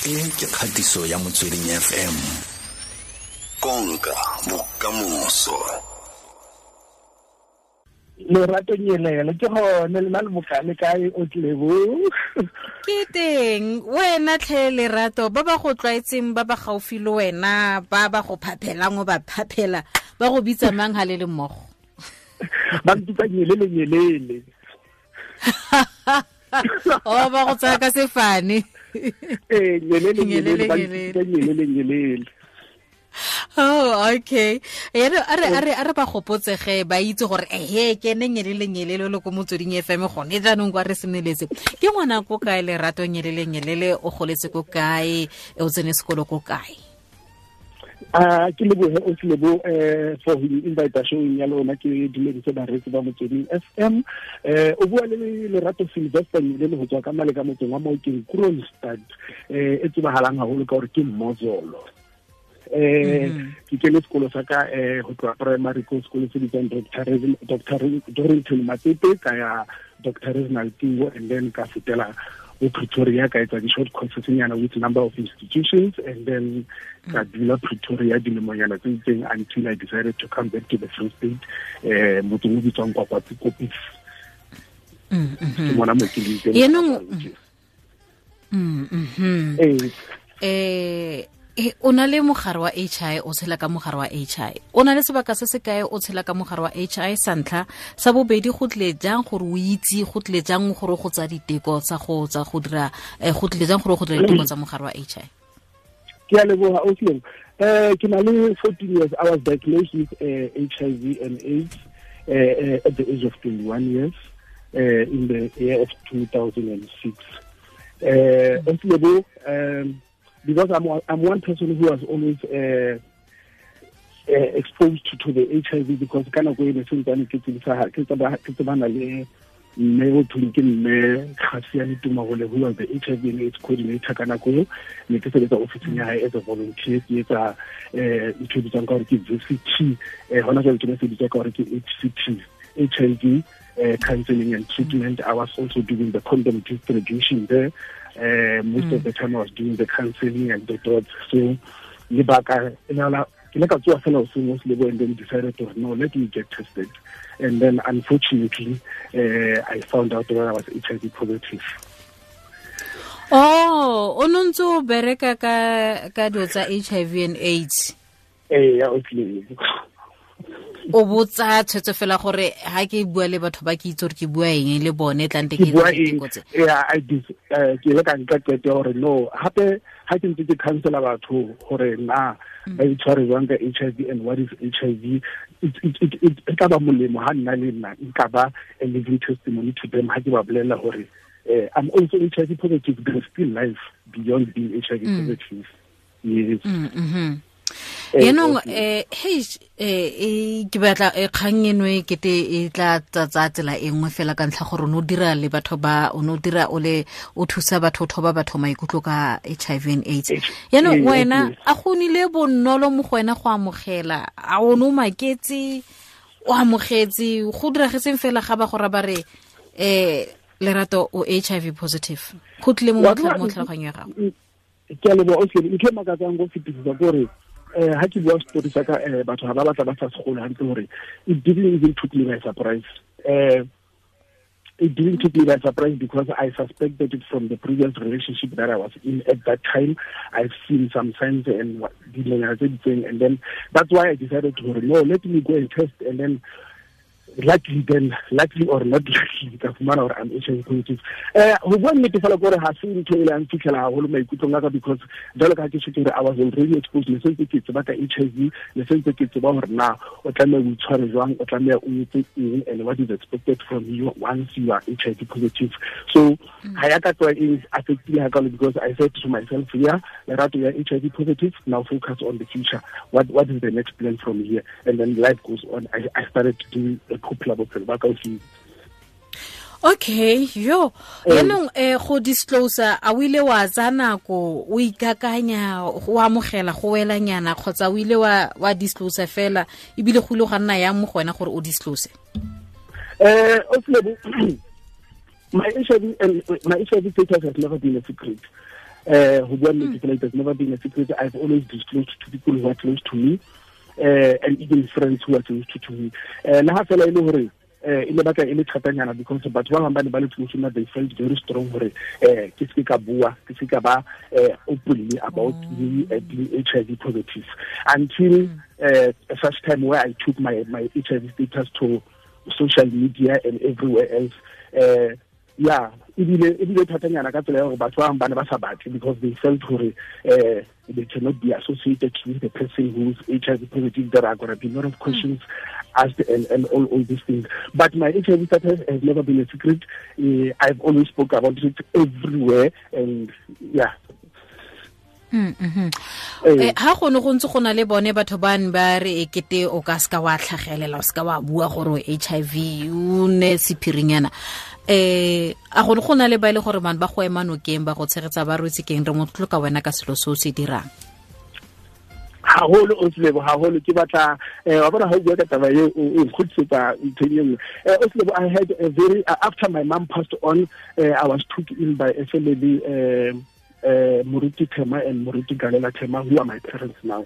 E ke kgatiso ya Motsweding FM. Konka bokamoso. Lerato Nyelele ke gone le na le bokale kae o tlebo ke teng wena tlhe Lerato ba ba go tlwaetseng ba ba gaufi le wena ba ba go phaphelang o ba phaphela ba go bitsa mang ha le le mmogo ba mpitsa Nyelele Nyelele o ba go tsaya ka sefane ee Nyelele Nyelele ba mpitsa Nyelele Nyelele. Oh, okay. Ere a re ba gopotsege ba itse gore ehe ke ne Nyelele Nyelele le ko Motsweding FM gone jaanong kwa re semeletse. Ke ngwana ko kae Lerato Nyelele Nyelele o goletse ko kae o tsene sekolo ko kae? Ke lebohe o Lebo for the invitation ya lona ke dumedise bareetsi ba Motsweding FM. O bua le Lerato Sylvester Nyelele go tswa ka male ka motseng wa Maokeng Kroonstad e tsebahalang haholo ka gore ke Mozolo. Ke kene sekolo sa ka go tloa primary ko sekolo se bitswang Dr. Dorrington Matsepe ka ya Dr. Reginald Tingo and then ka fetela o Pretoria ka etsa di-short courses nyana with number of institutions and then ka dula Pretoria dilemonyana tse itseng until I decided to come back to the Free State motseng o bitswang Kwakwatsi Kopis. Ke mona mo ke leng teng. O na le mogare wa HI o tshela ka mogare wa HI o na le sebaka se se kae o tshela ka mogare wa HI sa ntlha sa bobedi go tle jang gore o itse go tle jang gore go tsa diteko tsa go tsa go dira go tle jang gore go dira diteko tsa mogare wa HI? Ke a leboha o Lebo. Ke na le 14 years. I was diagnosed with HIV and AIDS at the age of 21 years in the year of 2006. Lebo, because I'm one person who was always exposed to the HIV because ka nako e ne sentsane ke tsebana le mme o thong ke mme Khasiane Tumagole who was the HIV and AIDS coordinator ka nako eo ne ke sebetsa ofising ya hae as a volunteer ke etsa ntho e bitswang ka gore ke VCT hona jwale ke ne se bitswa ka gore ke HCT HIV counseling and treatment. I was also doing the condom distribution there. Most of the time I was doing the counseling and the dots. So lebaka ke le ka tsoa fela hoseng o Lebo and then decided to no, let me get tested. And then unfortunately I found out that I was HIV positive. Oh, o no ntse o bereka ka dilo tsa HIV and AIDS? Ee, ya o Lebo. O botsa tshwetso fela gore ha ke bua le batho ba ke itse gore ke bua eng le bone tlante ke bua eng. Yeah, I did ke le ka nka qeto gore no hape ha ke ntse ke counsela batho gore na ba itshware jwang ka HIV and what is HIV it tla ba molemo ha nna le nna nka ba a living testimony to them ha ke ba bolella gore I'm also HIV positive, there's still life beyond being HIV positive. Yes. Yaanong hey ke batla kgang eno e kete e tla tsatsa tsela e nngwe fela ka ntlha gore o ne o dira le batho ba o ne o dira o le o thusa batho o thoba batho maikutlo ka HIV and AIDS. Yaanong wena a go nile bonolo mo go wena go amogela a o ne o maketse o amogetse go diragetseng fela ga ba go ra ba re Lerato o HIV positive go tlile mo tlhaloganyong ya gago? Ke a leboha o Lebo. Ntho e makatsang go fetisisa ke gore ha ke bua story sa ka batho ha ba batla ba sa segolo hantle gore it didn't even took me by surprise. It didn't take me by surprise because I suspected it from the previous relationship that I was in at that time. I've seen some signs and thing, and then that's why I decided to no, let me go and test, and then luckily or not luckily ka fumana gore I'm HIV positive. Ho bua nnete fela gore ha se ntho e leng fitlhela haholo maikutlong a ka because jwalo ka ha ke tjho I was already exposed ne sentse ke tseba ka HIV ne sentse ke tseba gore na o tlameha o itshware jwang o tlameha o etse eng and what is expected from you once you are HIV positive. So ha ya ka tloha e affectile hakalo because I said to myself, yeah, Lerato, you are HIV positive, now focus on the future. What is the next plan from here? And then life goes on. I started to do a Okay, yo. Yaanong go disclose a o ile wa tsaya nako o ikakanya go amogela go welanyana kgotsa o ile wa disclose fela ebile go ile ga nna yang mo go wena gore o disclose? My HIV status has never been a secret. Ho bua nnete fela, it has never been a secret. I've always disclosed to people who are close to me, and even friends who are close to me. Le ha fela e le hore e le batla e le thatanyana, because batho ba bang ba ne ba le close nna, they felt very strong hore ke se ka bua, ke se ka ba openly about me being HIV positive until such time where I took my HIV status to social media and everywhere else. Yeah, ebile thatanyana ka tsela ya gore batho ba bang ba ne ba sa batle, because they felt hore they cannot be associated with the person who's HIV positive. There are going to be a lot of questions asked and all these things. But my HIV status has never been a secret. I've always spoke about it everywhere, and yeah. Ha go ne go ntse go na le bone batho ba ne ba re ekete o ka ska wa tlhagelela, o ska wa bua gore HIV o ne sephirinyana, a go ne go na le ba ile gore man ba go ema nokeng, ba go tshegetsa, ba rwetse keng, re motlotlo ka wena ka selo se o se dirang? Haholo, Oslebo, haholo. Ke batla wa bona ha o bua ka taba eo, o nkgutlisetsa nthong e nngwe. Oslebo, I had a very after my mom passed on, I was took in by a family, Moruti Tema and Moruti Galela Tema, who are my parents now.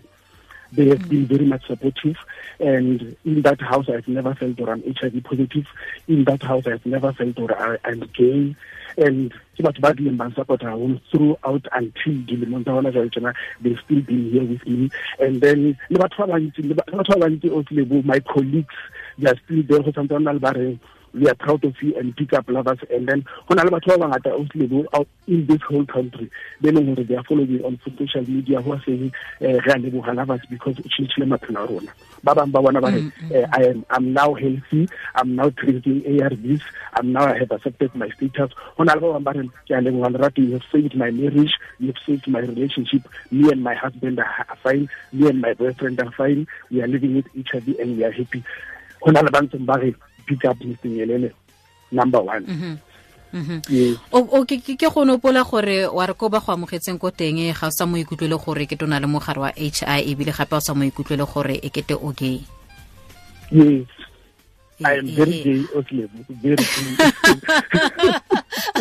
They have been very much supportive, and in that house I've never felt or I'm HIV positive. In that house I've never felt or I'm gay. And ke batho ba dileng ba support haholo throughout until dilemong tsa hona jwale tjena, they've still been here with me. And then le batho ba bantsi, Oslebo, my colleagues, they are still there. Go santse ba na le ba reng we are proud of you and pick up lovers. And then go na le batho ba bangata, Oslebo, out in this whole country, they know they are following me on social media, who are saying re a leboha Lovers because o tjhentjhile maphelo a rona. Ba bang ba bona ba re I'm now healthy, I'm now drinking ARVs, I'm now I have accepted my status. Go na le ba bang ba re ke a leboha Lerato, you have saved my marriage, you have saved my relationship, me and my husband are fine, me and my boyfriend are fine, we are living with each other and we are happy. Go na le ba ntseng ba re pick up Mr. Nyelele number one. Yes. O ke go nopola gore wa re ko ba go amogetseng ko teng ga o sa mo ikutlwele gore ke tona le mogare wa HIV, ebile gape o sa mo ikutlwele gore e kete o gay. Yes. I am very gay, Oslebo. Very gay.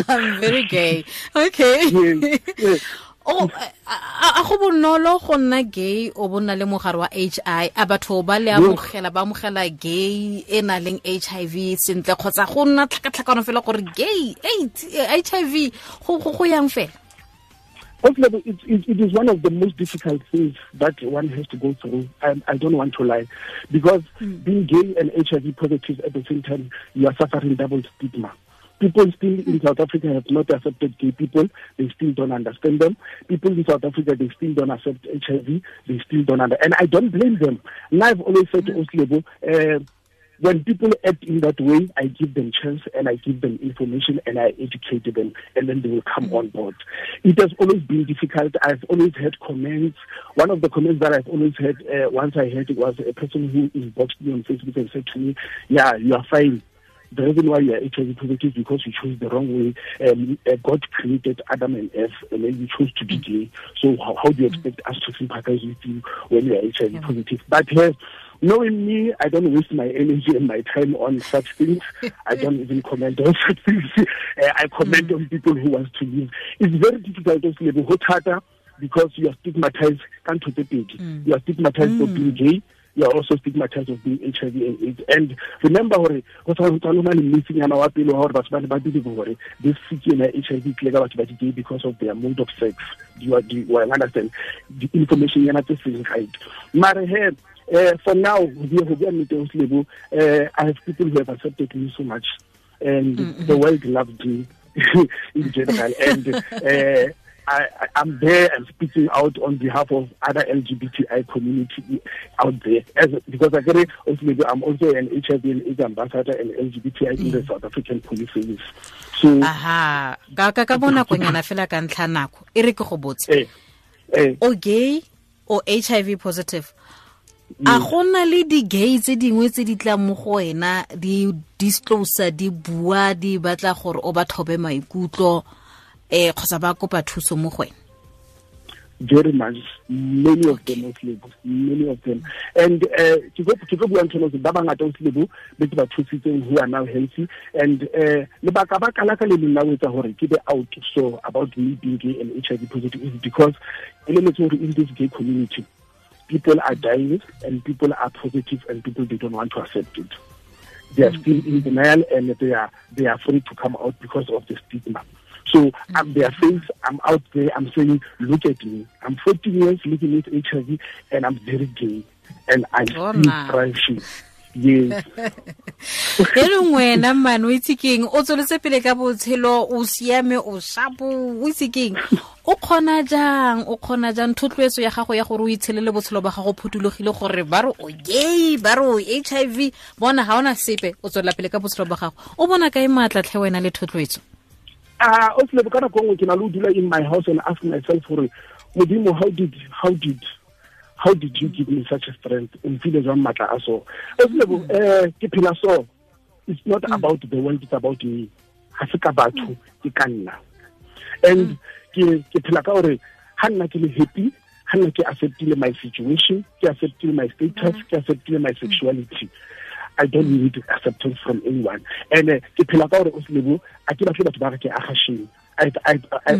I'm very gay. Okay. Yes. Yes. O a go bonolo go nna gay o bona le mogare wa HIV, a batho ba le amogela, ba amogela gay e na leng HIV sentle, kgotsa go nna tlhakatlhakano fela gore gay HIV go yang fela? Oslebo, it is one of the most difficult things that one has to go through. I don't want to lie, because being gay and HIV positive at the same time, you are suffering double stigma. People still in South Africa have not accepted gay people. They still don't understand them. People in South Africa, they still don't accept HIV. They still don't understand. And I don't blame them. And I've always said to Oslebo, when people act in that way, I give them chance and I give them information and I educate them, and then they will come on board. It has always been difficult. I've always had comments. One of the comments that I've always had, once I heard it, was a person who inboxed me on Facebook and said to me, yeah, you are fine. The reason why you are HIV positive is because you chose the wrong way. God created Adam and Eve, and then you chose to be gay. So how do you expect us to sympathize with you when you are HIV positive? But knowing me, I don't waste my energy and my time on such things. I don't even comment on such things. I comment on people who want to live. It's very difficult to live because you are stigmatized. You are stigmatized for being gay. You are also stigmatized of being HIV and AIDS. And remember, this HIV because of their mode of sex. Do you understand? The information you're not right. For now, I have people who have accepted me so much, and the world loved me in general. And I'm there and speaking out on behalf of other LGBTI community out there. Because I get it, I'm also an HIV and AIDS ambassador and LGBTI in the South African Police Service. So, aha, ka bona konyana fela ka ntlha nako e re ke go botse. O gay o HIV positive. A gona le di gay tse dingwe tse di tlang mo go wena di disclose, di bua, di batla gore o ba thobe maikutlo, kgotsa ba kopa thuso mo go wena? Very much. Many of them, many of them. And ke tlo bua ntho ba bangata o Lebo be ke ba thusitseng who are now healthy. And lebaka baka la ka le leng la ho etsa hore ke be out so about me being gay and HIV positive is because in this gay community, people are dying and people are positive and people, they don't want to accept it. They are still in denial and they are afraid to come out because of the stigma. So I'm their face, I'm out there, I'm saying, look at me. I'm 14 years living with HIV and I'm very gay and I'm still thriving. Yes. Yaanong wena man o itse keng, o tsweletse pele ka botshelo, o siame, o shapo, o itse keng, o kgona jang thotloetso ya gago ya gore o itshelele botshelo ba gago phutulogile gore ba re o gay, ba re o HIV, bona ga ona sepe, o tswelela pele ka botshelo ba gago. O bona kae maatla tlhe wena le thotloetso? O Lebo, ka nako nngwe ke na le ho dula in my house and ask myself gore Modimo, how did you give me such a strength? O mfile jwang matla a so? O Lebo, ke phela so. It's not about the world, it's about me. Ha se ka batho, ke ka nna. And ke phela ka hore ha nna ke le happy, ha nna ke acceptile my situation, ke acceptile my status, ke acceptile my sexuality. I don't need acceptance from anyone. And ke phela ka hore o Lebo, a ke batle batho ba re ke agasheng. I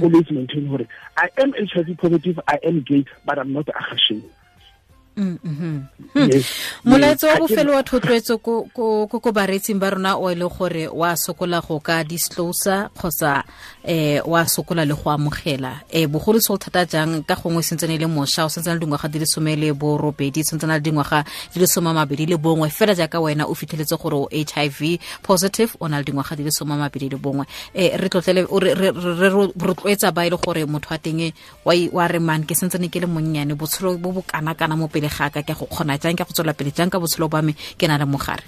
always maintain hore I am HIV positive, I am gay, but I'm not agasheng. Molaetso wa bofelo wa thotloetso ko bareetsing ba rona o e le gore wa sokola go ka disclose kgotsa wa sokola le go amogela, bogolo se thata jang ka gongwe sentsene le mosha o sentsene le dingwaga di le 18, sentsene le dingwaga di le 21, fela jaaka wena o fitlheletse gore o HIV positive, o na le dingwaga di le 21. Re tlotlele re rotloetsa ba e le gore motho wa teng wa re man ke sentsene ke le monnyane, botshelo bo bo kana kana mo pele ga ka ke go kgona jang, ke go tswela pele jang ka botshelo ba me ke na le mogare.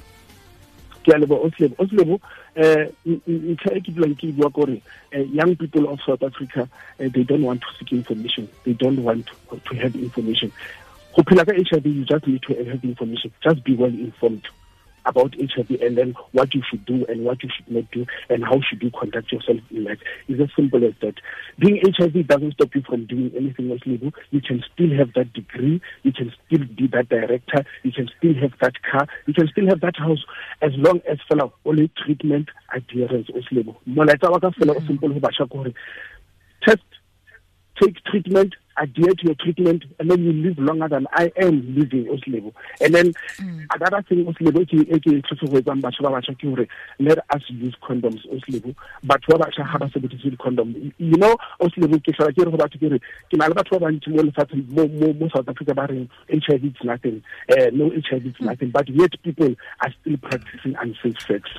Ke a leboha o Lebo. Ntlha e ke dulang ke bua gore young people of South Africa, they don't want to seek information, they don't want to have information. Go phela ka HIV, you just need to have information, just be well informed about HIV and then what you should do and what you should not do and how should you conduct yourself in life. It's as simple as that. Being HIV doesn't stop you from doing anything else, Lebo. You can still have that degree, you can still be that director, you can still have that car, you can still have that house, as long as fela only treatment adherence, Lebo. Molaetsa wa ka fela o simple ho batjha ke hore test, take treatment, adhere to your treatment, and then you live longer than I am living, Lebo. And then another thing, Lebo, let us use condoms, Lebo. But condom, you know, Lebo, South Africa, HIV is nothing, no HIV is nothing, but yet people are still practicing unsafe sex.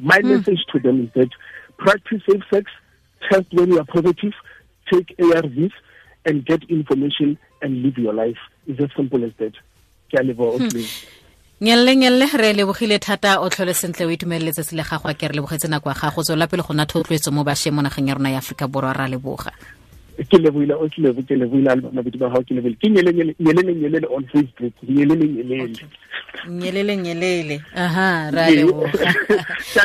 My message to them is that practice safe sex, test when you are positive, take ARVs, and get information and live your life. It's as simple as that. Ke a leboha. Nyelle re lebogile thata, o tlhole sentle, o itumeletse se le gago, a ke re lebogetse nako ya gago, tswela pele go nna thotloetso mo bašweng mo nageng ya rona ya Aforika Borwa, ra leboga. Ke lebohile o Lebo, ke lebohile mabedi ba gago, ke lebohile. Ke nyelele on Facebook, nyelele. Nyelele. Aha, ra leboga.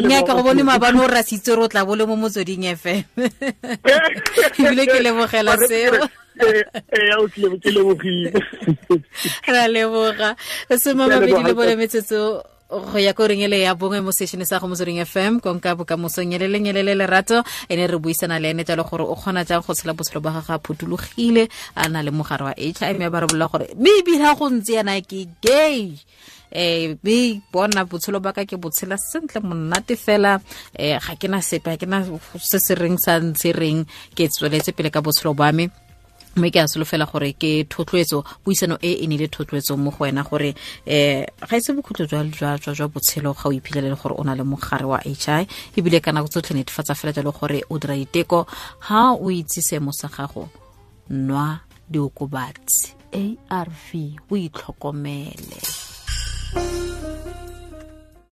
Nya ka go bone maabane o rasitse re o tla bole mo Motsweding FM. Ebile ke lebogela seo. Ke lebogile. Ra leboga. 24 metsotso go ya ko reng ele ya bongwe mo station sa go Motsweding FM, konka bokamoso nyelele lerato, ene re buisana le ene jalo gore o kgona jang go tshela botshelo ba gagwe a phutulogile, a na le mogare wa HIV, mme ba re bolela gore mme ebile ha go ntse yana ke gay, be bona botshelo ba ka ke botshela sentle monate fela, ga ke na sepe, ga ke na se se reng sa ntse reng, ke tsweletse pele ka botshelo ba me. Mme ke a solofela gore ke thotloetso, puisano e e nile thotloetso mo go wena gore ga ise bokhutlo jwa botshelo ga o iphitlhelele gore o na le mogare wa HIV, ebile ka nako tsotlhe netefatsa fela jalo gore o dira diteko, ha o itse seemo sa gago, nwa diokobatsi ARV, o itlhokomele.